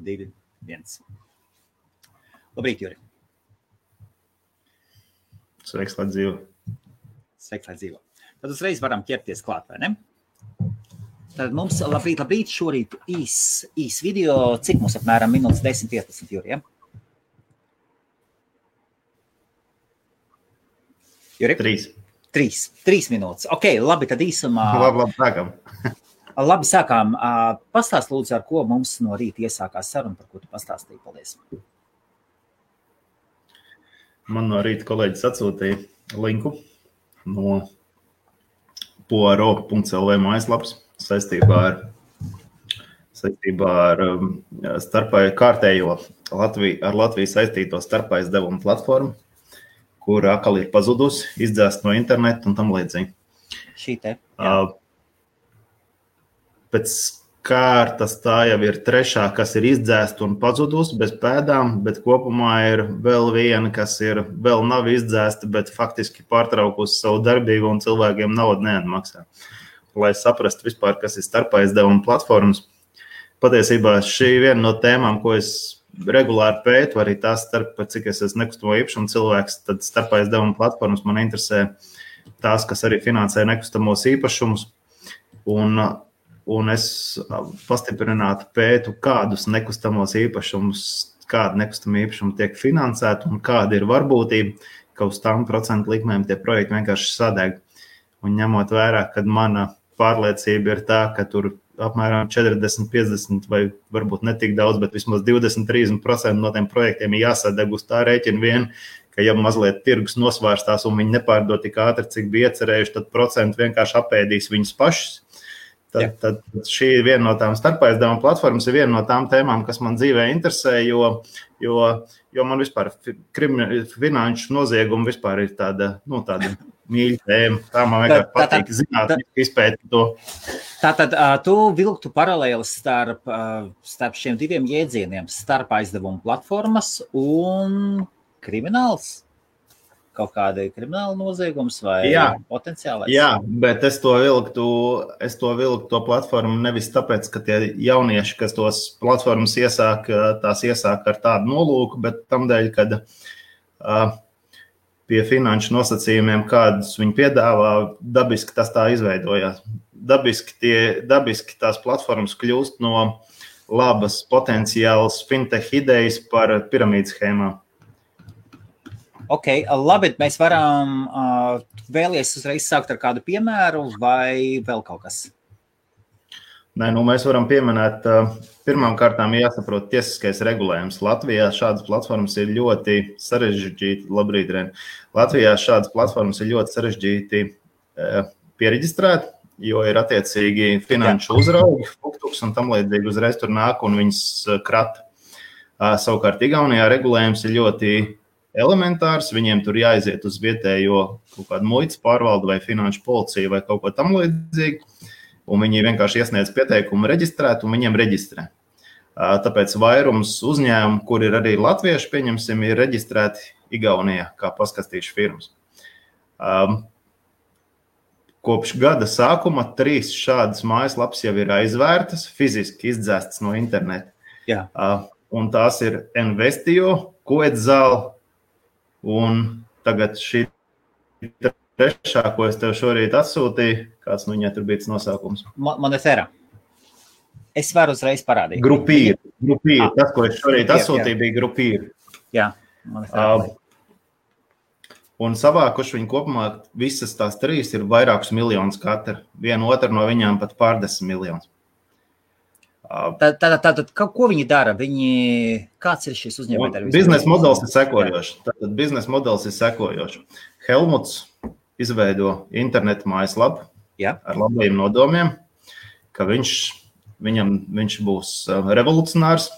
2, 1. Labrīt, Juri. Sveiks, lai dzīvo. Sveiks, lai dzīvo. Tad uzreiz varam ķerties klāt, vai ne? Tad mums labrīt, šorīt īs video, cik mums apmēram minūtes 10-15, Juri, ja? Juri? 3 minūtes. Ok, labi, tad īsumā... Labi, sākam. Labi, sākām. Pastāst lūdzu, ar ko mums no rīta iesākās saruna, par ko tu pastāstīji. Paldies. Man no rīta kolēģis atsūtīja linku no poaro.lv mājaslapas saistībā ar kārtējo ar Latviju saistīto starpaizdevumu platformu, kur atkal ir pazudusi, izdzēst no interneta un tam līdzīgi. Šī te. Pēc kārtas tā jau ir trešā, kas ir izdzēsta un pazudusi bez pēdām, bet kopumā ir vēl viena, kas vēl nav izdzēsta, bet faktiski pārtraukusi savu darbību un cilvēkiem naudu neatmaksā. Lai saprastu vispār, kas ir starpaizdevuma platformas. Patiesībā šī viena no tēmām, ko es regulāri pētu, arī tās cik es esmu nekustamo īpašumu cilvēks, tad starpaizdevuma platformas man interesē tās, kas arī finansē nekustamos īpašumus. Un es pastiprināti pētu, kādus nekustamos īpašumus, kāda nekustama īpašuma tiek finansēta un kāda ir varbūtība, ka uz tām procentu likmēm tie projekti vienkārši sadeg. Un ņemot vērā, kad mana pārliecība ir tā, ka tur apmēram 40, 50 vai varbūt ne tik daudz, bet vismaz 20-30% no tiem projektiem ir jāsadeg uz tā rēķina vien, ka ja mazliet tirgus nosvārstās un viņi nepārdod tik ātri, cik bija iecerējuši, tad procenti vienkārši apēdīs viņus pašus. Tad šī ir viena no tām starpaizdevuma platformas, ir viena no tām tēmām, kas man dzīvē interesē, jo man vispār finanšu nozieguma vispār ir tāda mīļa tēma. Tā man vienkārši patīk zināt, izpētīt to. Tātad tu vilktu paralēli starp šiem diviem jēdzieniem, starpaizdevuma platformas un krimināls? Kaut kāda krimināla noziegums vai potenciālais? Jā, bet es to vilktu to platformu nevis tāpēc, ka tie jaunieši, kas tos platformas iesāk ar tādu nolūku, bet tamdēļ, kad pie finanšu nosacījumiem, kādus viņi piedāvā, dabiski tas tā izveidojās. Dabiski tās platformas kļūst no labas potenciālas fintech idejas par piramīdas schēmām. Ok, labi, mēs varam vēlies uzreiz sākt ar kādu piemēru vai vēl kaut kas? Nē, mēs varam pieminēt, pirmām kārtām jāsaprot tiesiskais regulējums. Latvijā šādas platformas ir ļoti sarežģīti, labrīt, Ren. Latvijā šādas platformas ir ļoti sarežģīti piereģistrēt, jo ir attiecīgi finanšu uzraugi, fuktuks un tam līdzīgi uzreiz tur nāk un viņas krata. Savukārt Igaunijā regulējums ir ļoti elementārs, viņiem tur jāiziet uz vietējo kaut kādu muitas pārvaldu vai finanšu policiju vai kaut ko tam līdzīgi, un viņi vienkārši iesniedz pieteikumu reģistrēt, un viņiem reģistrē. Tāpēc vairums uzņēmumu, kur ir arī latvieši, pieņemsim, ir reģistrēti Igaunijā kā paskastīšu firmas. Kopš gada sākuma 3 šādas mājaslapas jau ir aizvērtas, fiziski izdzēstas no interneta. Jā. Un tās ir Investio, Koedzāla, un tagad šī trešā, ko es tev šorīt atsūtīju, kāds viņai tur bija tas nosaukums? Monetēra. Es varu uzreiz parādīt. Grupīri. Tas, ko es šorīt atsūtīju, bija grupīri. Jā, Monetēra. Un savākuši viņi kopumā visas tās 3 ir vairākus miljonus katra. Viena otra no viņām pat pārdesmit miljonus. Tātad, ko viņi dara? Kāds ir šis uzņēmējs? Biznesa modelis ir sekojošs. Helmuts izveido internetu mājaslapu ar labajiem nodomiem, ka viņš būs revolucionārs,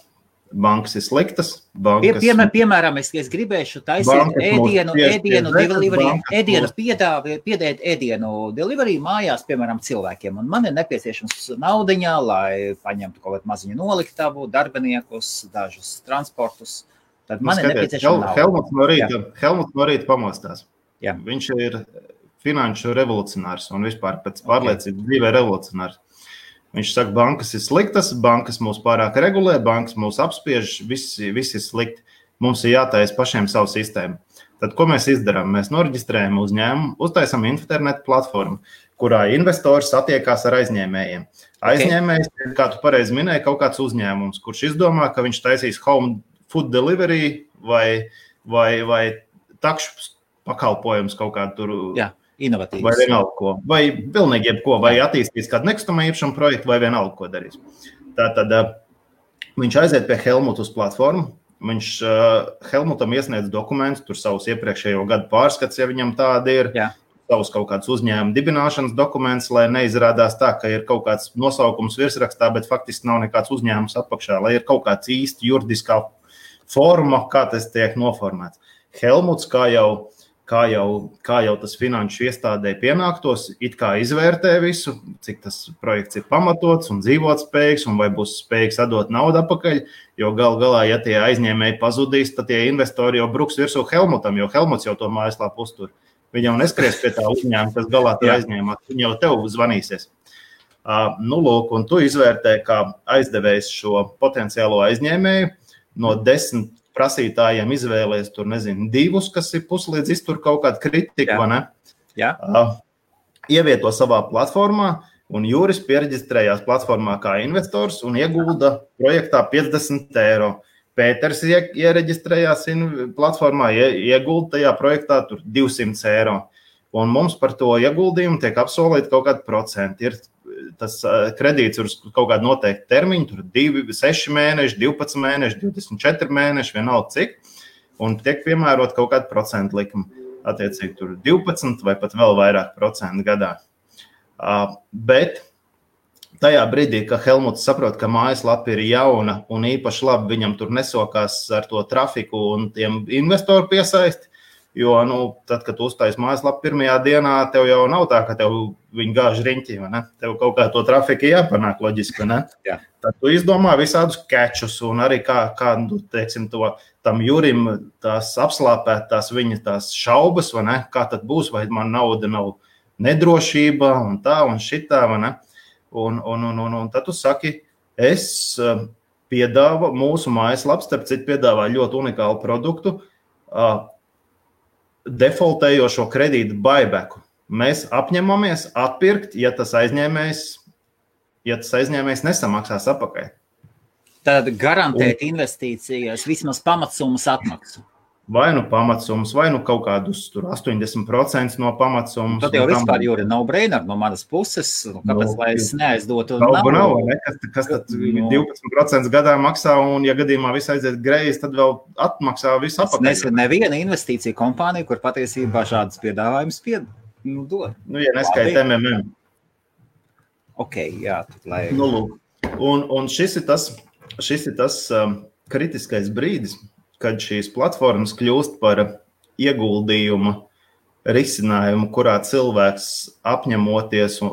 bankas ir sliktas. Piemēram, es gribēšu taisīt piedēt ēdienu delivery mājās, piemēram, cilvēkiem. Un man ir nepieciešams naudiņā, lai paņemtu kaut kādu maziņu noliktavu, darbiniekus, dažus transportus. Tad man ir nepieciešama nauda. Helmuts no rīta pamostās. Jā. Viņš ir finanšu revolucionārs un vispār pēc pārliecības dzīvē revolucionārs. Viņš saka, bankas ir sliktas, bankas mūs pārāk regulē, bankas mūs apspiež, viss ir slikti. Mums ir jātaisa pašiem savu sistēmu. Tad, ko mēs izdarām? Mēs noreģistrējam uzņēmumu, uztaisam internetu platformu, kurā investors satiekās ar aizņēmējiem. Aizņēmējs, kā tu pareizi minēji, kaut kāds uzņēmums, kurš izdomā, ka viņš taisīs home food delivery vai takšu pakalpojums kaut kādu tur. Jā, inovatīvs. Vai vienalga ko. Vai pilnīgi jebko, vai attīstīs kādu nekustamā īpašuma projektu, vai vienalga ko darīs. Tātad viņš aiziet pie Helmuta uz platformu. Viņš Helmutam iesniedz dokumentus, tur savus iepriekšējo gadu pārskats, ja viņam tāda ir, savus kaut kāds uzņēmuma dibināšanas dokuments, lai neizrādās tā, ka ir kaut kāds nosaukums virsrakstā, bet faktiski nav nekāds uzņēmums apakšā, lai ir kaut kāds īsti juridiskā forma, kā tas tiek noformēts. Helmuts, kā jau tas finanšu iestādē pienāktos, it kā izvērtē visu, cik tas projekts ir pamatots un dzīvotspējīgs, un vai būs spējīgs atdot naudu atpakaļ, jo galā, ja tie aizņēmēji pazudīs, tad tie investori jau bruks virsū Helmutam, jo Helmuts jau to mājaslapu uztur. Viņi jau neskries pie tā uzņēmuma, kas galā tur aizņēmā, viņi jau tev zvanīsies. Lūk, un tu izvērtē, kā aizdevējs šo potenciālo aizņēmēju no 10 prasītājiem izvēlēs tur, 2, kas ir puslīdz iztur kaut kādu kritiku, vai ne? Jā. Ievieto savā platformā, un Juris piereģistrējās platformā kā investors un iegulda projektā 50 eiro. Pēters iereģistrējās platformā, iegulda tajā projektā tur 200 eiro. Un mums par to ieguldījumu tiek apsolīti kaut kādi procenti. Ir tas kredīts uz kaut kādu noteiktu termiņu, tur 6 mēneši, 12 mēneši, 24 mēneši, vienalga cik, un tiek piemērot kaut kādu procentu likumu, attiecīgi tur 12 vai pat vēl vairāk procentu gadā. Bet tajā brīdī, ka Helmuts saprot, ka mājaslapa ir jauna un īpaši labi viņam tur nesokās ar to trafiku un tiem investoru piesaisti, jo, tad, kad tu uztais mājaslapu pirmajā dienā, tev jau nav tā, ka tev viņi gāž riņķi, vai ne? Tev kaut kā to trafiku jāpanāk loģiski, vai ne? Jā. Tad tu izdomā visādus kečus un arī kā teiksim, tam Jurim tās apslāpētās viņa tās šaubas, vai ne? Kā tad būs, vai man nauda nav nedrošība un tā un šitā, vai ne? Un tad tu saki, es piedāvu mūsu mājaslaps, starp citu piedāvā ļoti unikālu produktu, defaultējošo kredītu buybacku. Mēs apņemamies atpirkt, ja tas aizņēmējs nesamaksās atpakaļ. Tad garantēt investīcijas vismaz pamatsummas atmaksu. Vai pamatsummas, vai kaut kādus 80% no pamatsummas. Tad jau vispār, Juri, nav brainer no manas puses, kāpēc lai es neaizdotu nav, ne? Kas tad 12% gadā maksā, un ja gadījumā viss aiziet greizi, tad vēl atmaksā visu apakaļ. Es neviena investīcija kompānija, kur patiesībā šādas piedāvājumus dod. Ja neskait MMM. Ok, jā. Tad, lai... Lūk. Un šis ir tas kritiskais brīdis, kad šīs platformas kļūst par ieguldījuma risinājumu, kurā cilvēks apņemoties un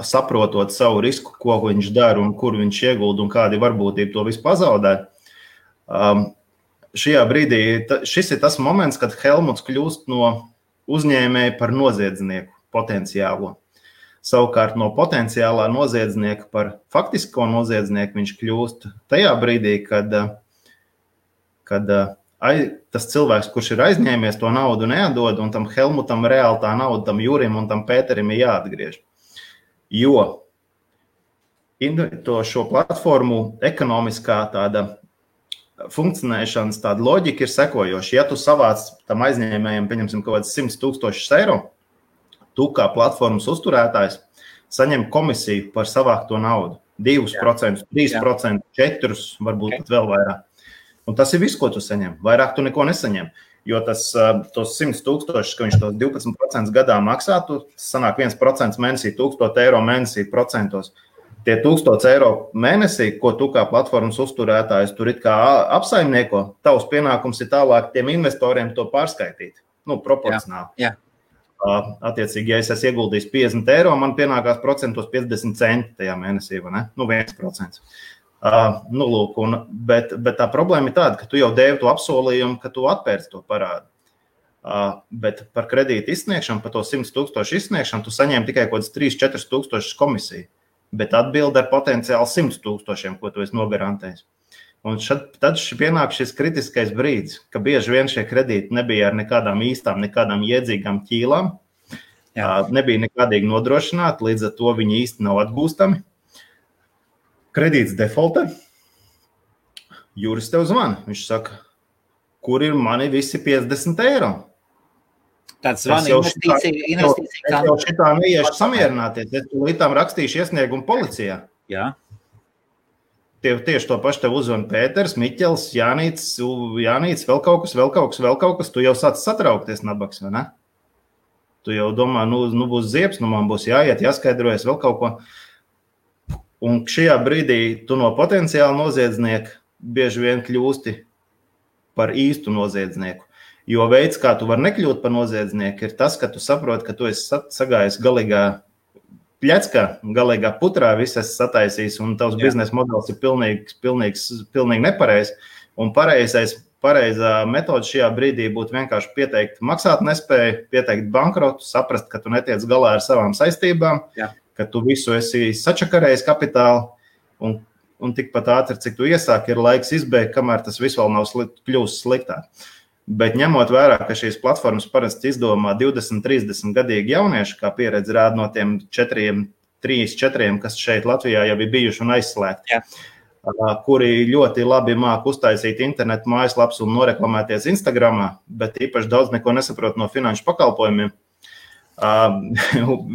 saprotot savu risku, ko viņš dara un kur viņš iegulda un kādi varbūtība to visu pazaudē. Šajā brīdī šis ir tas moments, kad Helmuts kļūst no uzņēmēja par noziedznieku potenciālo. Savukārt no potenciālā noziedznieka par faktisko noziedznieku viņš kļūst tajā brīdī, kad tas cilvēks, kurš ir aizņēmies, to naudu neatdod, un tam Helmutam reāli tā nauda, tam Jurim un tam Pēterim ir jāatgriež. Jo šo platformu ekonomiskā tāda funkcionēšanas tāda loģika ir sekojoša. Ja tu savāc tam aizņēmējiem, pieņemsim, kaut kāds 100,000 eiro, tu kā platformas uzturētājs saņem komisiju par savākto naudu. 2%, 3%, 4%, varbūt pat vēl vairāk. Un tas ir viss, ko tu saņem. Vairāk tu neko nesaņem. Jo tos 100,000, ka viņš tos 12% gadā maksā, tu sanāk 1% mēnesī, 1,000 eiro mēnesī procentos. Tie 1,000 eiro mēnesī, ko tu kā platformas uzturētājs tur it kā apsaimnieko, tavs pienākums ir tālāk tiem investoriem to pārskaitīt. Proporcionāli. Jā. Attiecīgi, ja es esmu ieguldījis 50 eiro, man pienākās procentos 50 centi tajā mēnesī, vai ne? 1%. Lūk, bet tā problēma ir tāda, ka tu jau devi to apsolījumu, ka tu atpērci to parādu. Bet par kredītu izsniegšanu, par to 100,000 izsniegšanu, tu saņēmi tikai kaut kāds 3-4 tūkstošus komisiju. bet atbildi ar potenciāli 100 000, ko tu esi nogarantējis. Un tad pienāk šis kritiskais brīdis, ka bieži vien šie kredīti nebija ar nekādām īstām, nekādām jēdzīgām ķīlām, nebija nekādīgi nodrošināti, līdz ar to viņi īsti nav atgūstami. Kredīts defaultē, Juris tev zvana, viņš saka, kur ir mani visi 50 eiro? Tāds zvana investīcija. Es jau šitā neiešu samierināties, es līdām rakstīšu iesniegumu policijā. Jā. Tieši to pašu tev uzvana Pēters, Miķels, Jānīts, vēl kaut kas, tu jau sāc satraukties, nabaks, vai ne? Tu jau domā, nu būs ziebs, nu man būs jāiet, jāskaidrojas vēl kaut ko. Un šajā brīdī tu no potenciāla noziedznieka bieži vien kļūsti par īstu noziedznieku. Jo veids, kā tu vari nekļūt par noziedznieku, ir tas, ka tu saproti, ka tu esi sagājis galīgā pļeckā, galīgā putrā, viss esi sataisījis, un tavs biznesa modelis ir pilnīgi nepareizs. Un pareizā metode šajā brīdī būtu vienkārši pieteikt maksāt nespēju, pieteikt bankrotu, saprast, ka tu netiec galā ar savām saistībām, ka tu visu esi sačakarējis kapitālu, un tikpat ātri, cik tu iesāki, ir laiks izbeigt, kamēr tas viss vēl nav kļūst sliktāk. Bet ņemot vērā, ka šīs platformas parasti izdomā 20-30 gadīgi jaunieši, kā pieredze rāda no tiem 3-4, kas šeit Latvijā jau ir bijuši un aizslēgti, kuri ļoti labi māk uztaisīt internetu mājaslaps un noreklamēties Instagramā, bet īpaši daudz neko nesaprot no finanšu pakalpojumiem.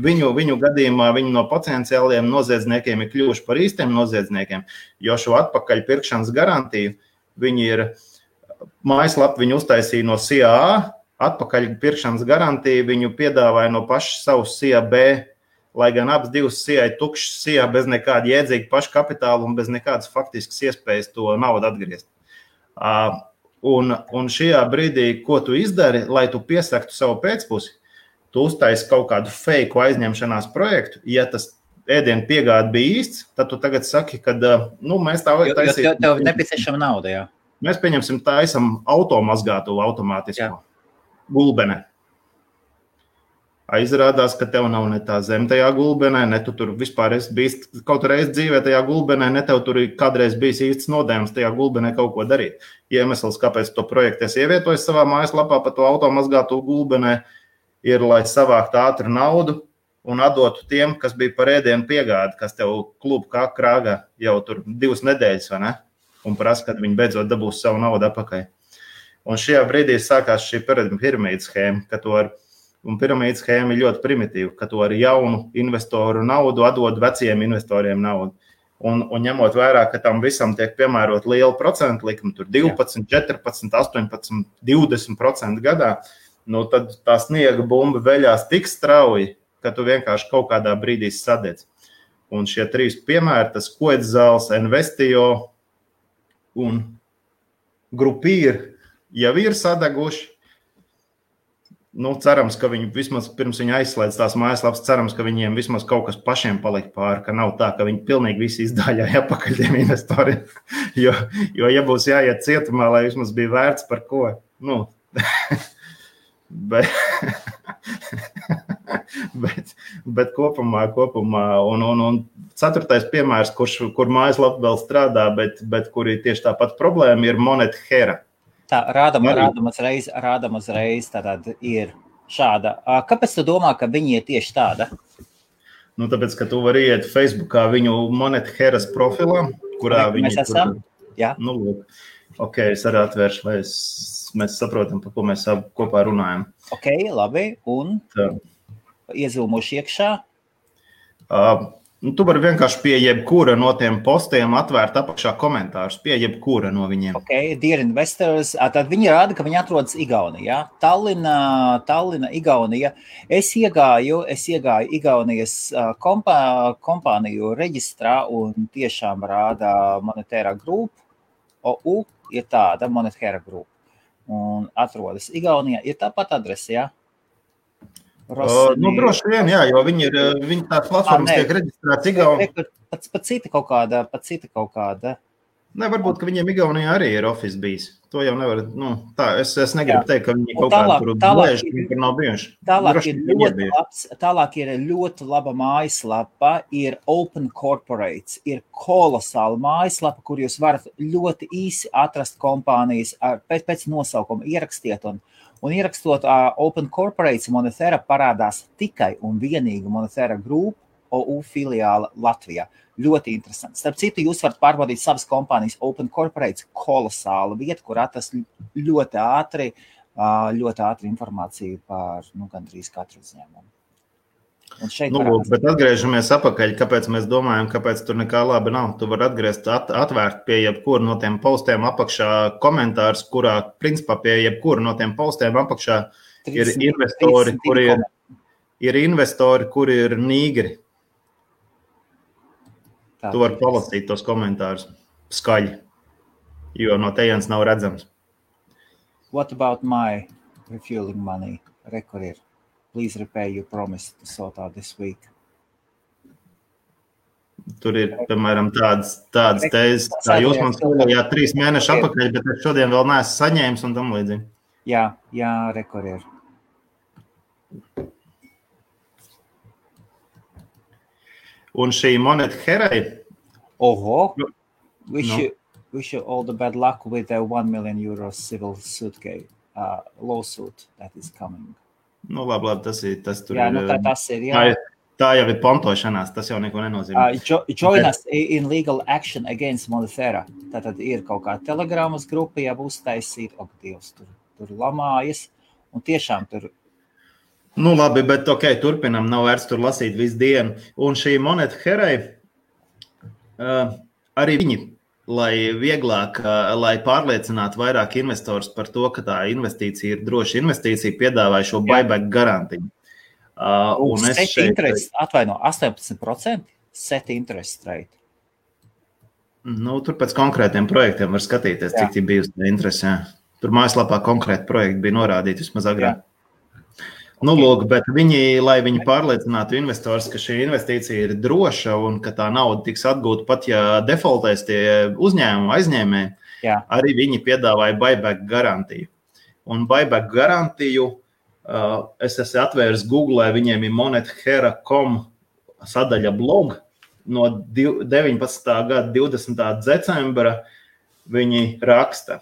Viņu gadījumā viņi no potenciāliem noziedzniekiem ir kļuvuši par īstiem noziedzniekiem, jo šo atpakaļ pirkšanas garantiju viņi ir mājaslapu viņu uztaisīja no CIA, atpakaļ pirkšanas garantiju viņu piedāvāja no paša savus CIA B, lai gan abas divas CIA tukšas CIA bez nekāda jēdzīga paša kapitāla un bez nekādas faktiskas iespējas to naudu atgriezt. Un šajā brīdī, ko tu izdari, lai tu piesaktu savu pēcpusi, tu uztaisi kaut kādu feiku aizņemšanās projektu, ja tas ēdienu piegāde bija īsts, tad tu tagad saki, ka mēs tā vajag taisīt. Jo tev nepieciešama nauda, jā. Mēs taisam automazgātu automātisko gulbenē. Aizrādās, ka tev nav ne tā zem tajā gulbenē, ne tu tur vispār esi bijis kaut reiz dzīvē tajā gulbenē, ne tev tur ir kādreiz bijis īsts nodējums tajā gulbenē kaut ko darīt. Iemesls, kāpēc to projektu es ievietoju savā mājaslapā pa to automazgātu gulbenē, ir, lai savāktu ātru naudu un atdotu tiem, kas bija par ēdienu piegādi, kas tev klubu kā krāgā jau tur 2 nedēļas, vai ne? Un prasa, kad viņi beidzot dabūs savu naudu atpakaļ. Un šajā brīdī sākās šī piramīdas schēma, un piramīdas schēma ir ļoti primitīva, ka tu ar jaunu investoru naudu atdod veciem investoriem naudu. Un ņemot vērā, ka tam visam tiek piemērot liela procentu likuma, tur 12, 14, 18, 20% gadā, tad tā sniega bumba veļās tik strauji, ka tu vienkārši kaut kādā brīdī sadedz. Un šie 3 piemēri, tas Koedzāls, Investijo un Grupīri jau ir sadeguši. Cerams, ka viņi vismaz pirms viņi aizslēdz tās mājaslapas, cerams, ka viņiem vismaz kaut kas pašiem palika pāri, ka nav tā, ka viņi pilnīgi visi izdāļāja apakaļ tiem investoriem. Jo, ja būs jāiet cietumā, lai vismaz bija vērts par ko. Bet kopumā, un 4. piemērs, kur mājaslapa vēl strādā, bet kur ir tieši tāpat problēma, ir Monet Hera. Tā, rādam uzreiz, tātad ir šāda. Kāpēc tu domā, ka viņi ir tieši tāda? Tāpēc, ka tu vari iet Facebookā viņu Monet Heras profilā, kurā viņi... Mēs esam? Jā. Ok, es arī atvēršu, lai mēs saprotam, par ko mēs kopā runājam. Ok, labi, un iezūmuši iekšā? Tu vari vienkārši pie jebkura no tiem postiem atvērt apakšā komentārus, pie jebkura no viņiem. Ok, Dear Investors, tad viņi rāda, ka viņi atrodas Igaunijā. Tallina, Igaunija. Es iegāju Igaunijas kompāniju reģistrā un tiešām rāda Monetēra Group. OU ir tāda Monetēra Group. Un atrodas Igaunijā. Ir tāpat adrese, jā? Droši vien, jā, jo viņi tās platformas tiek reģistrētas Igaunijā. Pat cita kaut kāda. Ne, varbūt, ka viņiem Igaunijā arī ir office bijis. To jau nevar, es negribu teikt, ka viņi kaut kādā tur blēž, kur nav bijuši. Tālāk ir ļoti laba mājaslapa, ir Open Corporates, ir kolosāla mājaslapa, kur jūs varat ļoti īsi atrast kompānijas pēc nosaukuma ierakstiet un ierakstot Open Corporates Monetera parādās tikai un vienīgi Monetera Group OU filiāla Latvijā. Ļoti interesanti. Starp citu, jūs varat pārbaudīt savas kompānijas Open Corporates kolosāla vieta, kur atrast ļoti ātri informāciju par gandrīz katru uzņēmumu. Bet atgriežamies apakaļ, kāpēc mēs domājam, kāpēc tur nekā labi nav. Tu vari atvērt pie jebkura no tiem postiem apakšā komentārs, kurā, principā, pie jebkura no tiem postiem apakšā ir investori, kuri ir nīgri. Tu vari palasīt tos komentārus skaļi, jo no tejienes nav redzams. What about my refueling money? Rekur ir. Please repay your promise to sort out this week. Tur ir, piemēram, tādas tēzes, tā jūs man skolījāt 3 mēneši apakaļ, bet es šodien vēl neesmu saņēmis un tam līdzīgi. Jā, rekur ir. Un šī moneta Herai. We should all the bad luck with the 1 million euro civil suit lawsuit that is coming. Labi, tas tur ir. Tas ir, jā. Tā jau ir pontošanās, tas jau neko nenozīmē. Join us in legal action against Monetera. Tātad ir kaut kā telegramas grupa, ja būs taisīt, Dievs, tur lamājas, un tiešām tur. Labi, bet turpinam, nav vērts tur lasīt visu dienu. Un šī moneta Herai, arī viņi, lai pārliecinātu vairāk investors par to, ka tā investīcija ir droša investīcija, piedāvāja šo buyback garantiju. Set interest, 18%, set interest rate. Tur pēc konkrētiem projektiem var skatīties, cik tie bijusi interesi. Tur mājaslapā konkrēti projekti bija norādīti vismaz agrāk. Bet lai viņi pārliecinātu investors, ka šī investīcija ir droša un ka tā nauda tiks atgūta pat, ja defaultēs tie uzņēmumi aizņēmēji, arī viņi piedāvāja buyback garantiju. Un buyback garantiju es esmu atvērs Google, viņiem ir monethera.com sadaļa blog no 19. gada 20. decembra. Viņi raksta,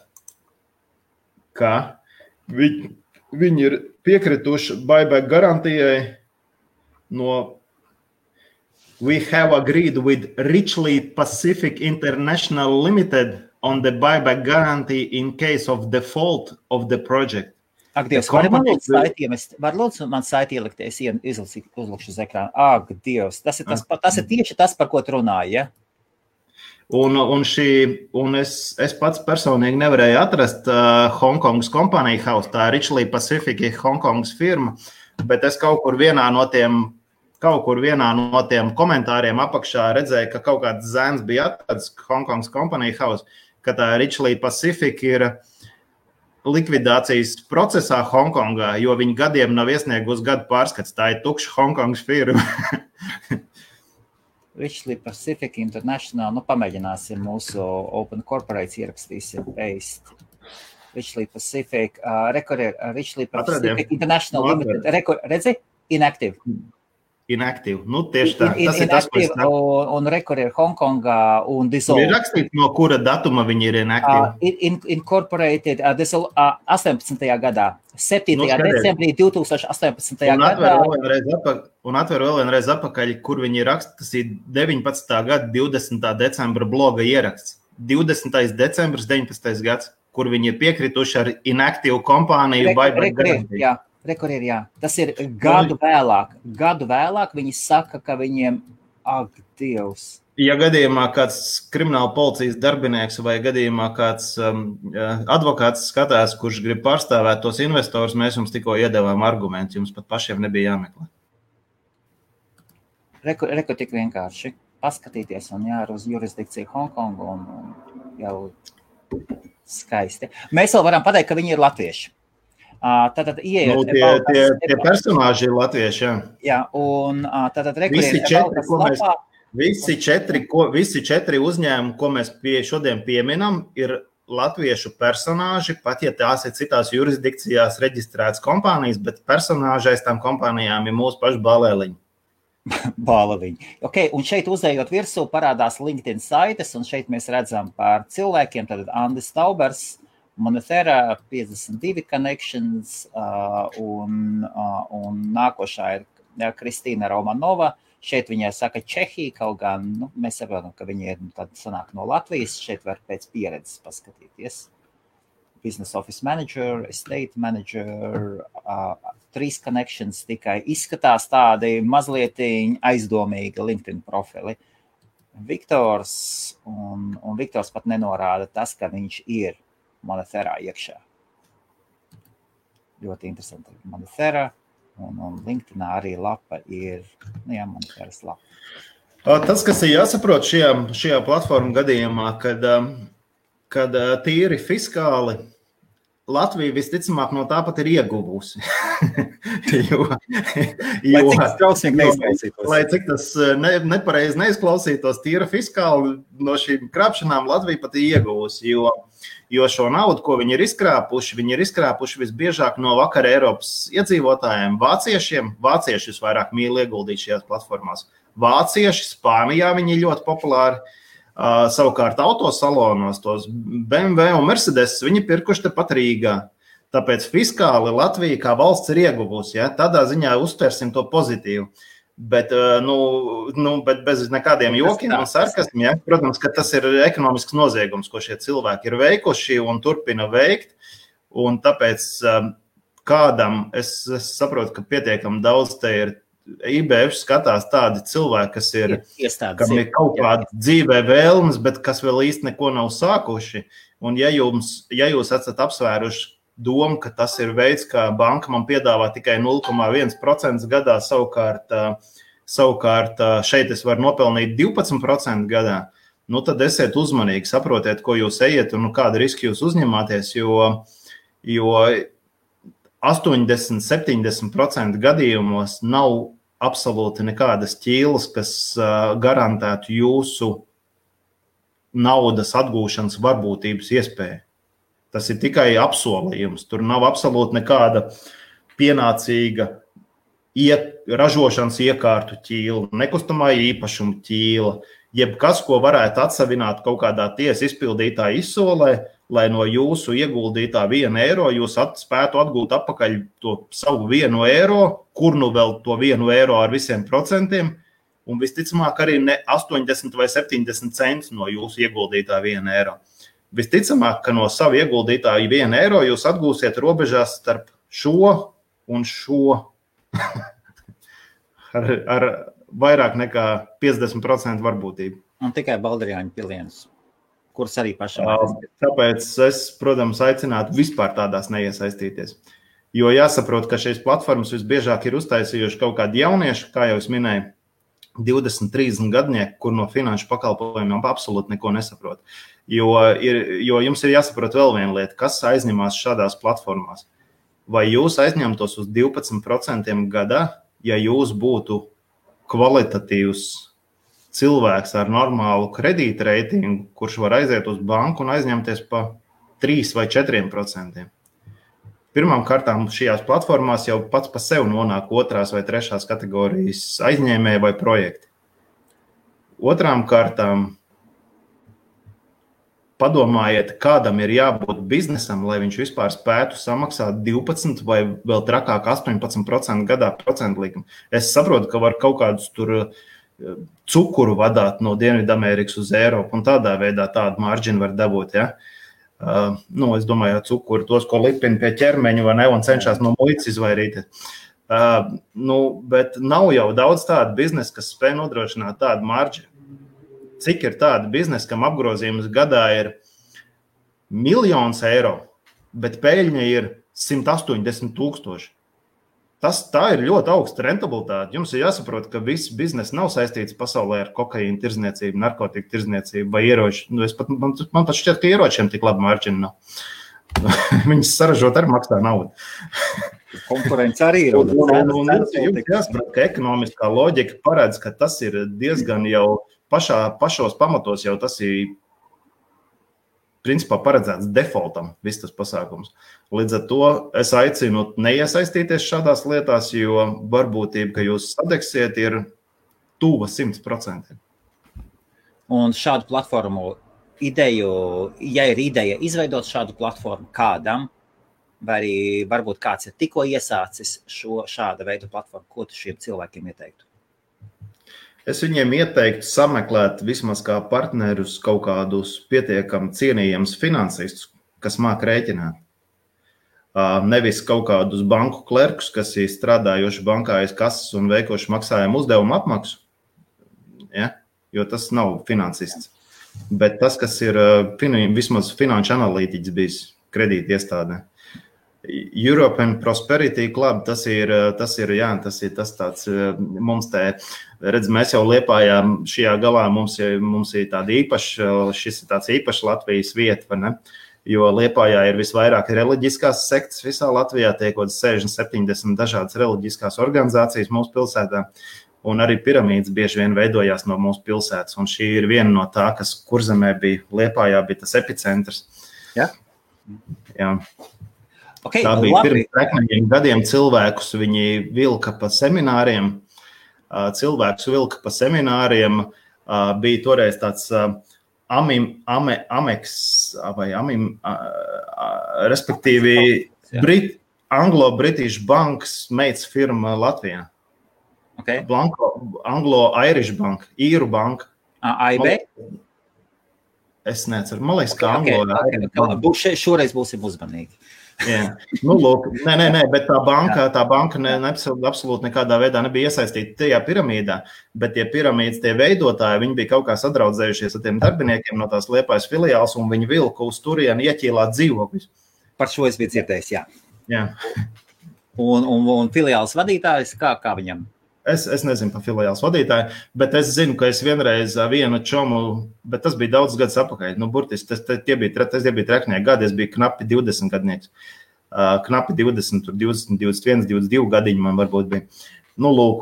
ka viņi ir piekrituši buyback garantijai no We have agreed with Richley Pacific International Limited on the buyback guarantee in case of default of the project. Dievs, var lūdzu man saiti ielikt, es uzlikšu uz ekrānu. Dievs, tas ir tieši tas, par ko tu runāji, ja? Un es pats personīgi nevarēju atrast Hongkongas kompānija house, tā Richley Pacific Hongkongas firma, bet es kaut kur vienā no tiem komentāriem apakšā redzēju, ka kaut kāds zēns bija atrads Hongkongas kompānija house, ka tā Richley Pacific ir likvidācijas procesā Hongkongā, jo viņi gadiem nav iesniegusi gadu pārskats, tā ir tukša Hongkongas firma. Richley Pacific International, pamēģināsim mūsu Open Corporates ierakstīsim paste. Richley Pacific, Richley Pacific International Limited, redzi? Inactive. Inactive, tieši tā. Tas ir tas, ko es saku. Un rekord ir Hongkongā un dissolved. Ir rakstīts, no kura datuma viņi ir inactive? Incorporated 18. gadā, 7. decembrī 2018. gadā. Un atver vēl vienreiz apakaļ, kur viņi raksta, tas ir 19. gada 20. decembra bloga ieraksts. 20. decembris 19. gads, kur viņi ir piekrituši ar inactive kompāniju buyback garantiju. Rekord ir, jā. Tas ir gadu vēlāk. Gadu vēlāk viņi saka, ka viņiem, Dievs. Ja gadījumā kāds krimināla policijas darbinieks vai gadījumā kāds advokāts skatās, kurš grib pārstāvēt tos investors, mēs jums tikko iedevām argumentus, jums pat pašiem nebija jāmeklē. Rekord tik vienkārši. Paskatīties un jār uz jurisdikciju Hongkongu un jau skaisti. Mēs vēl varam pateikt, ka viņi ir latvieši. Tātad ieiet tie personāži ir latvieši, jā. Jā, un tātad visi četri, ko mēs Visi četri uzņēmumi, ko mēs šodien pieminam, ir latviešu personāži, pat ja tās ir citās jurisdikcijās reģistrētas kompānijas, bet personāži aiz tām kompānijām ir mūsu paši balēliņi. Bālaviņi. Okay, un šeit uzējot virsū parādās LinkedIn saites, un šeit mēs redzam par cilvēkiem, tad Andis Taubers, Monetera, 52 connections, un nākošā ir Kristīna Romanova. Šeit viņai saka Čehija, kaut gan mēs saprotam, ka viņi ir tad sanāk no Latvijas. Šeit var pēc pieredzes paskatīties. Business Office Manager, Estate Manager, 3 connections tikai izskatās tādi mazliet aizdomīgi LinkedIn profili. Viktors, un Viktors pat nenorāda tas, ka viņš ir Moneterā iekšā. Ļoti interesanti. Monetera. Un LinkedInā arī lapa ir, Moneteras lapa. Tas, kas ir jāsaprot šajā platformu gadījumā, kad tīri fiskāli Latvija visticamāk no tāpat ir ieguvusi. Lai cik tas nepareizi neizklausītos, tīra fiskāli no šīm krāpšanām Latvija pat ir ieguvusi, jo šo naudu, ko viņi ir izkrāpuši visbiežāk no vakar Eiropas iedzīvotājiem, vāciešiem. Vāciešus vairāk mīl ieguldīt šajās platformās. Vācieši, Spānijā viņi ir ļoti populāri. Savukārt autosalonos tos BMW un Mercedes viņi pirkuši tepat Rīgā. Tāpēc fiskāli Latvija kā valsts ir ieguvusi. Ja? Tādā ziņā uztversim to pozitīvu. Bet bez nekādiem jokiem un sarkasmiem, ja? Protams, ka tas ir ekonomisks noziegums, ko šie cilvēki ir veikuši un turpina veikt. Un tāpēc kādam, es saprotu, ka pietiekami daudz te ir IBF skatās tādi cilvēki, kas ir, kam ir kaut kāda dzīvē vēlmes, bet kas vēl īsti neko nav sākuši. Un ja jūs esat apsvēruši domu, ka tas ir veids, kā banka man piedāvā tikai 0,1% gadā, savukārt šeit es varu nopelnīt 12% gadā, tad esiet uzmanīgi, saprotiet, ko jūs ejat un kādu risku jūs uzņemāties, jo 80-70% gadījumos nav absolūti nekādas ķīlas, kas garantētu jūsu naudas atgūšanas varbūtības iespēju. Tas ir tikai apsolījums. Tur nav absolūti nekāda pienācīga ražošanas iekārtu ķīla, nekustamā īpašuma ķīla, jebkas, ko varētu atsavināt kaut kādā tiesa izpildītā izsolē, lai no jūsu ieguldītā 1 eiro jūs spētu atgūt atpakaļ to savu 1 eiro, kur nu vēl to 1 eiro ar visiem procentiem, un visticamāk arī ne 80 vai 70 centus no jūsu ieguldītā 1 eiro. Visticamāk, ka no savu ieguldītā 1 eiro jūs atgūsiet robežās starp šo un šo ar vairāk nekā 50% varbūtību. Un tikai Balderjāņu pilienus, kuras arī pašam. Tāpēc es, protams, aicinātu vispār tādās neiesaistīties. Jo jāsaprot, ka šīs platformas visbiežāk ir uztaisījuši kaut kādi jaunieši, kā jau es minēju, 20-30 gadnieki, kur no finanšu pakalpojumiem absolūti neko nesaprot. Jo jums ir jāsaprot vēl viena lieta, kas aizņemās šādās platformās. Vai jūs aizņemtos uz 12% gadā, ja jūs būtu kvalitatīvs cilvēks ar normālu kredītreitingu, kurš var aiziet uz banku un aizņemties pa 3 vai 4%. Pirmām kārtām šajās platformās jau pats pa sevi nonāk 2. vai 3. kategorijas aizņēmēji vai projekti. Otrām kārtām padomājiet, kādam ir jābūt biznesam, lai viņš vispār spētu samaksāt 12 vai vēl trakāk 18% gadā procentu likumu. Es saprotu, ka var kaut kādus tur cukuru vadāt no Dienvidamerikas uz Eiropu un tādā veidā tādu marģinu var dabūt, ja? Es domāju, cukuri tos, ko lipina pie ķermeņa vai ne, un cenšas no muitas izvairīties. Bet nav jau daudz tādu biznesu, kas spēj nodrošināt tādu marģinu. Cik ir tāda biznesa, kam apgrozījums gadā ir 1 000 000 eiro, bet peļņa ir 180 000. Tā ir ļoti augsta rentabilitāte. Jums ir jāsaprot, ka viss biznesa nav saistīts pasaulē ar kokaīnu tirzniecību, narkotiku tirzniecību vai ieroču. Man pat šķiet, ka ieročiem tik labi marģina nav. Viņas saražot arī maksā naudu. Konkurence arī ir. Jums jāsaprot, ka ekonomiskā loģika paredz, ka tas ir diezgan jau pašos pamatos, jau tas ir principā paredzēts defaultam, viss tas pasākums. Līdz ar to es aicinu neiesaistīties šādās lietās, jo varbūtība, ka jūs sadegsiet, ir tuva 100%. Un šādu platformu ideju, ja ir ideja izveidot šādu platformu kādam, vai arī varbūt kāds ir tikko iesācis šāda veida platformu, ko tu šiem cilvēkiem ieteiktu? Es viņiem ieteiktu sameklēt vismaz kā partnerus kaut kādus pietiekami cienījams finansistus, kas māk rēķināt. Nevis kaut kādus banku klerkus, kas ir strādājoši bankā aiz kases un veikoši maksājumu uzdevumu apmaksu, ja? Jo tas nav finansists. Bet tas, kas ir vismaz finanšu analītiķis bijis kredīti iestādē. European Prosperity Club, tas ir tas tāds, mums te, redz, mēs jau Liepājā šajā galā, mums ir tāda īpaša, šis ir tāds īpašs Latvijas vieta, vai ne? Jo Liepājā ir visvairāk reliģiskās sektas visā Latvijā, tiek kaut 60-70 dažādas reliģiskās organizācijas mūsu pilsētā, un arī piramīdas bieži vien veidojās no mūsu pilsētas, un šī ir viena no tā, kas Kurzemē bija, Liepājā bija tas epicentrs. Ja? Jā. Okay, tā bija pirms 3 gadiem cilvēkus, viņi vilka pa semināriem, bija toreiz tāds Amex, vai respektīvi Anglo-British Banks meitas firma Latvijā. Okay. Anglo-Irish Bank, Īru banka. AIB? Es neceru, man liekas, ka Anglo-Irish. Šoreiz būsim uzmanīgi. Jā. Nu, lūk, nē, bet tā banka absolūti nekādā veidā nebija iesaistīta tajā piramīdā, bet tie piramīdas, tie veidotāji, viņi bija kaut kā sadraudzējušies ar tiem darbiniekiem no tās Liepājas filiāls, un viņi vilka uz turieni ieķīlāt dzīvokļus. Par šo es biju dzirdējis, jā. Jā. Un filiāls vadītājs, kā viņam? Es nezinu par filiāls vadītāju, bet es zinu, ka es vienreiz vienu čomu, bet tas bija daudz gadus apakaļ. Nu, burtiski, tie bija treknieki gadi, es biju knapi 20 gadnieks. Knapi 20, tur 20, 21, 22 gadiņi man varbūt bija. Nu, lūk,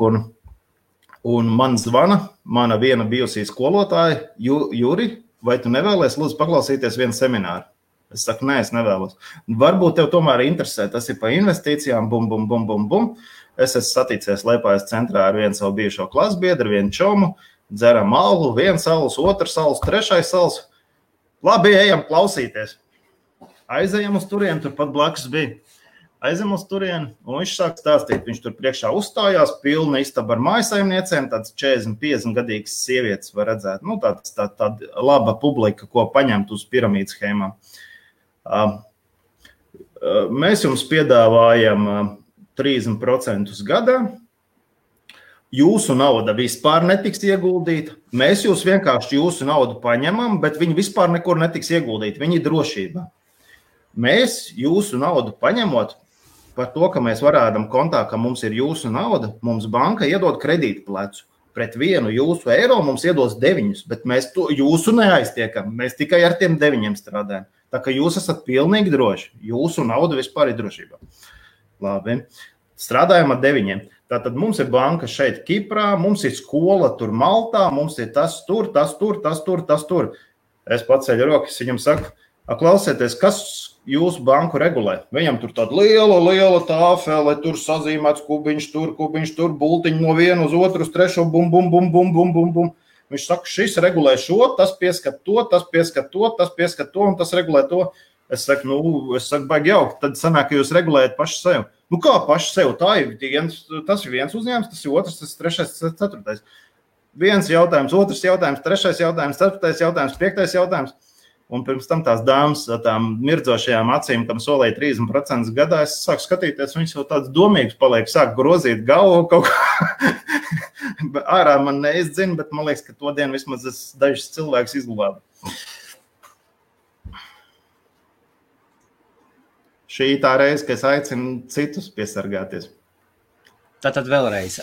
un man zvana, mana viena bijusī skolotāja, Juri, vai tu nevēlies, lūdzu, paklausīties vienu semināru? Es saku, nē, es nevēlos. Varbūt tev tomēr interesē, tas ir pa investīcijām, bum. Es esmu saticies Liepājas centrā ar vienu savu bijušo klasbiedru, vienu čomu, dzeram alu, viens alus, otrs alus, trešais alus. Labi, ejam klausīties. Aizejam uz turieni, tur pat blakus bija. Aizejam uz turieni, un viņš sāk stāstīt. Viņš tur priekšā uzstājās, pilna istaba ar mājasaimniecēm, tāds 40-50 gadīgs sievietes var redzēt. Nu, tāda laba publika, ko paņemt uz piramīdas schēmām. Mēs jums piedāvājam 30% gadā. Jūsu nauda vispār netiks ieguldīta. Mēs vienkārši jūsu naudu paņemam, bet viņi vispār nekur netiks ieguldīti. Viņi ir drošībā. Mēs jūsu naudu paņemot par to, ka mēs varādam kontā, ka mums ir jūsu nauda, mums banka iedod kredītu plecu. Pret 1 jūsu eiro mums iedos 9, bet mēs jūsu neaiztiekam. Mēs tikai ar tiem 9 strādājam. Tā ka jūs esat pilnīgi droši. Jūsu nauda vispār ir drošībā. Labi. Strādājam ar 9. Tātad mums ir banka šeit Kiprā, mums ir skola tur Maltā, mums ir tas tur. Es paceļu rokas, viņam saku, klausieties, kas jūsu banku regulē? Viņam tur tāda liela tāfele, tur sazīmēts kubiņš tur, bultiņi no vienu uz otru, uz trešo, bum. Viņš saka, šis regulē šo, tas pieskat to, tas pieskat to, un tas regulē to. Es saku, baigi jauki, tad sanāk, ka jūs regulējat paši sev. Nu kā paši sev? Tas ir viens uzņēmums, tas ir otrs, tas ir trešais, tas ir ceturtais. Viens jautājums, otrs jautājums, trešais jautājums, ceturtais jautājums, piektais jautājums. Un pirms tam tās dāmas ar tām mirdzošajām acīm, kam solēja 30% gadā, es sāku skatīties, viņas jau tāds domīgs paliek, sāk grozīt galvu kaut kā. Ārā man neizdzina, bet man liekas, ka to dienu vismaz es dažus cilvēkus izglābu. Šī tā reize, ka es aicinu citus piesargāties. Tātad vēlreiz.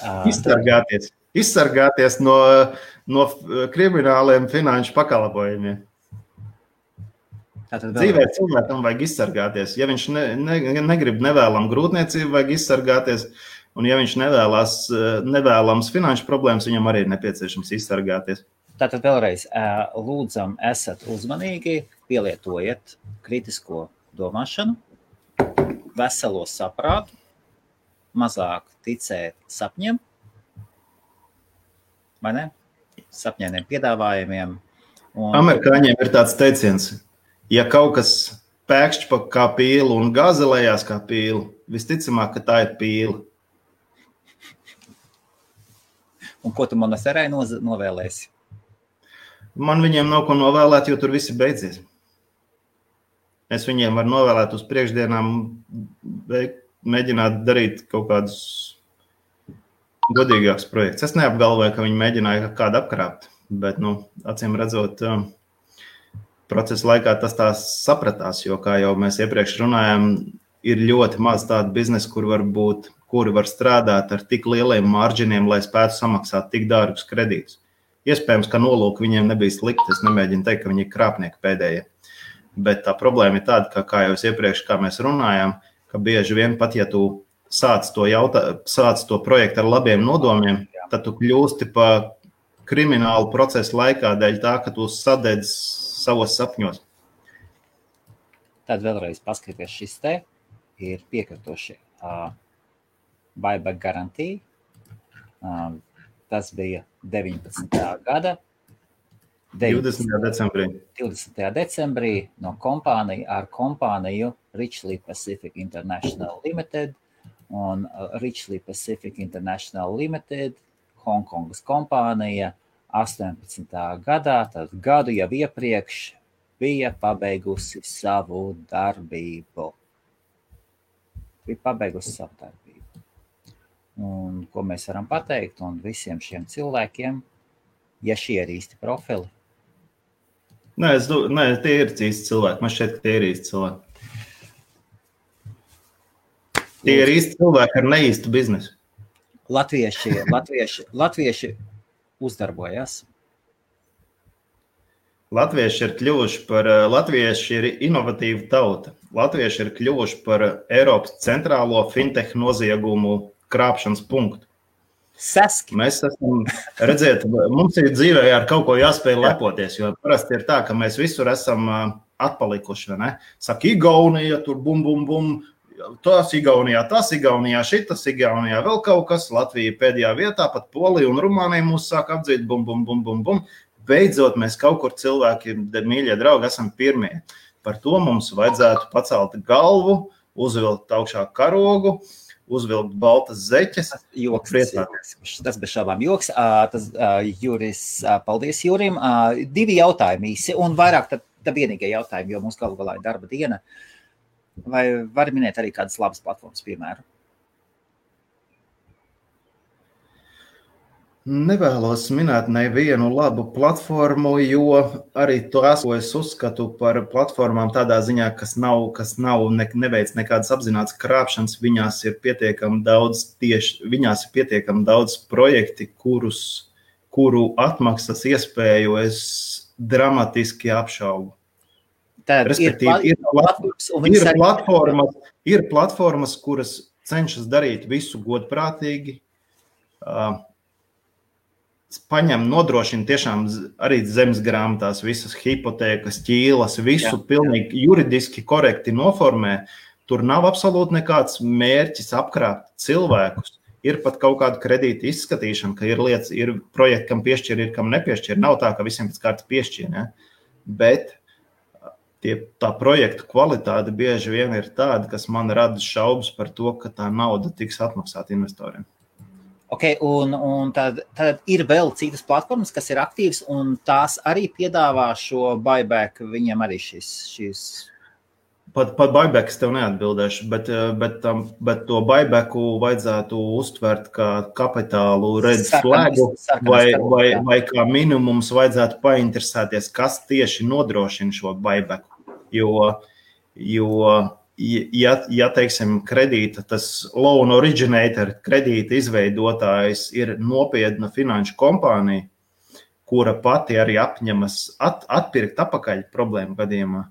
Izsargāties no krimināliem finanšu pakalpojumiem. Dzīvē cilvēkam vajag izsargāties. Ja viņš negrib nevēlam grūtniecību, vajag izsargāties. Un ja viņš nevēlams finanšu problēmas, viņam arī ir nepieciešams izsargāties. Tātad vēlreiz lūdzam, esat uzmanīgi, pielietojiet kritisko domāšanu, veselo saprātu, mazāk ticēt sapņiem, vai ne? Sapņainiem piedāvājumiem. Amerikāņiem ir tāds teiciens, ja kaut kas pēkšķi kā pīle un gāzelējās kā pīle, visticamāk, ka tā ir pīle. Un ko tu Monasterai novēlēsi? Man viņiem nav ko novēlēt, jo tur viss ir beidzies. Es viņiem varu novēlēt uz priekšdienām, mēģināt darīt kaut kādus godīgākus projektus. Es neapgalvoju, ka viņi mēģināja kādu apkrāpt, bet, acīm redzot, procesa laikā tas tā sapratās, jo, kā jau mēs iepriekš runājām, ir ļoti maz tādu biznesu, kuri var strādāt ar tik lieliem marģiniem, lai spētu samaksāt tik dārgus kredītus. Iespējams, ka nolūki viņiem nebija slikti, es nemēģinu teikt, ka viņi ir krāpnieki pēdējie. Bet tā problēma ir tāda, kā jau iepriekš, kā mēs runājām, ka bieži vien pat, ja tu sāc to projektu ar labiem nodomiem, tad tu kļūsti pa kriminālu procesu laikā dēļ tā, ka tu sadedz savos sapņos. Tad vēlreiz paskaties šis te ir piekritoši. Buyback garantija. Tas bija 19. gada 20. decembrī no kompāniju Richley Pacific International Limited un Richley Pacific International Limited, Hongkongas kompānija 18. gadā, tad gadu jau iepriekš bija pabeigusi savu darbību. Un ko mēs varam pateikt, un visiem šiem cilvēkiem, ja šie ir īsti profili? Nē, tie ir īsti cilvēki. Man šķiet, ka tie ir īsti cilvēki. Tie ir īsti cilvēki ar neīstu biznesu. Latvieši uzdarbojas. Latvieši ir inovatīva tauta. Latvieši ir kļuvuši par Eiropas centrālo fintech noziegumu krāpšanas punktu. Seski. Mēs esam, redziet, mums ir dzīvē ar kaut ko jāspēj lepoties, jo parasti ir tā, ka mēs visur esam atpalikuši, vai ne? Saka, Igaunija, tur bum, tas Igaunijā, šitas Igaunijā, vēl kaut kas, Latvija pēdējā vietā, pat Polija un Rumānija mūs sāk apdzīt, bum. Beidzot, mēs kaut kur cilvēki, mīļie draugi, esam pirmie. Par to mums vajadzētu pacelt galvu, uzvilkt augšā karogu, uzvilkt baltas zeķes. Tas bez šābām joks. Juris, paldies Jurim. 2 jautājumi īsi un vairāk tad vienīgie jautājumi, jo mums galu galā ir darba diena. Vai var minēt arī kādas labas platformas, piemēram? Nevēlos minēt nevienu labu platformu, jo arī tās, ko es uzskatu par platformām tādā ziņā, kas neveic nekādas apzinātas krāpšanas, viņās ir pietiekami daudz projekti, kuru atmaksas iespēju es dramatiski apšaubu. Respektīvi, ir platformas, kuras cenšas darīt visu godprātīgi, nodrošina tiešām arī zemes grāmatās visas hipotēkas, ķīlas, visu pilnīgi juridiski korekti noformē. Tur nav absolūti nekāds mērķis apkrāpt cilvēkus. Ir pat kaut kāda kredīta izskatīšana, ka ir lietas, ir projekti, kam piešķir, ir kam nepiešķir. Nav tā, ka visiem pēc kārtas piešķir, ne? Bet tā projektu kvalitāte bieži vien ir tāda, kas man rada šaubas par to, ka tā nauda tiks atmaksāta investoriem. Ok, un tad ir vēl citas platformas, kas ir aktīvas, un tās arī piedāvā šo buyback, viņiem arī šīs... Pat buyback es tev neatbildēšu, bet to buybacku vajadzētu uztvert kā kapitālu red flagu, vai kā minimums vajadzētu painteresēties, kas tieši nodrošina šo buybacku, ja teiksim, kredīta, tas loan originator, kredīta izveidotājs ir nopietna finanšu kompānija, kura pati arī apņemas atpirkt apakaļ problēmu gadījumā,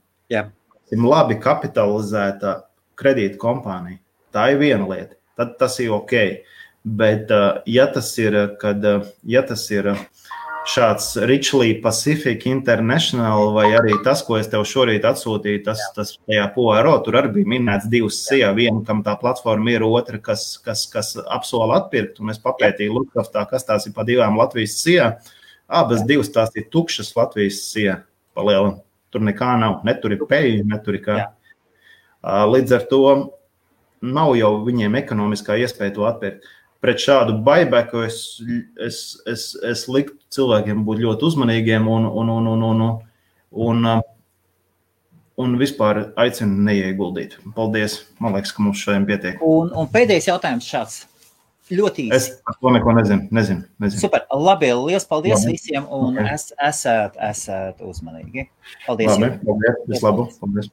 labi kapitalizēta kredīta kompānija. Tā ir viena lieta. Tad tas ir ok. Bet, ja tas ir šāds Richley Pacific International vai arī tas, ko es tev šorīt atsūtīju, tas tajā PORO, tur arī bija minēts 2 SIA, viena, kam tā platforma ir, otra, kas apsola atpirkt, un es papētīju Lutkaftā, kas tās ir pa 2 Latvijas SIA. Abas 2 tās ir tukšas Latvijas SIA palielam. Tur nekā nav, netur ir peļņa, netur ir kā. Līdz ar to nav jau viņiem ekonomiskā iespēja to atpirkt. Pret šādu buybacku es liktu cilvēkiem būt ļoti uzmanīgiem un vispār aicinu neieguldīt. Paldies. Man liekas, ka mums šodien pietiek. Un pēdējais jautājums šāds. Ļoti īsi. Es par to neko nezinu. Super. Labi, liels paldies visiem un esat uzmanīgi. Paldies. Labi, paldies. Vislabāk. Paldies.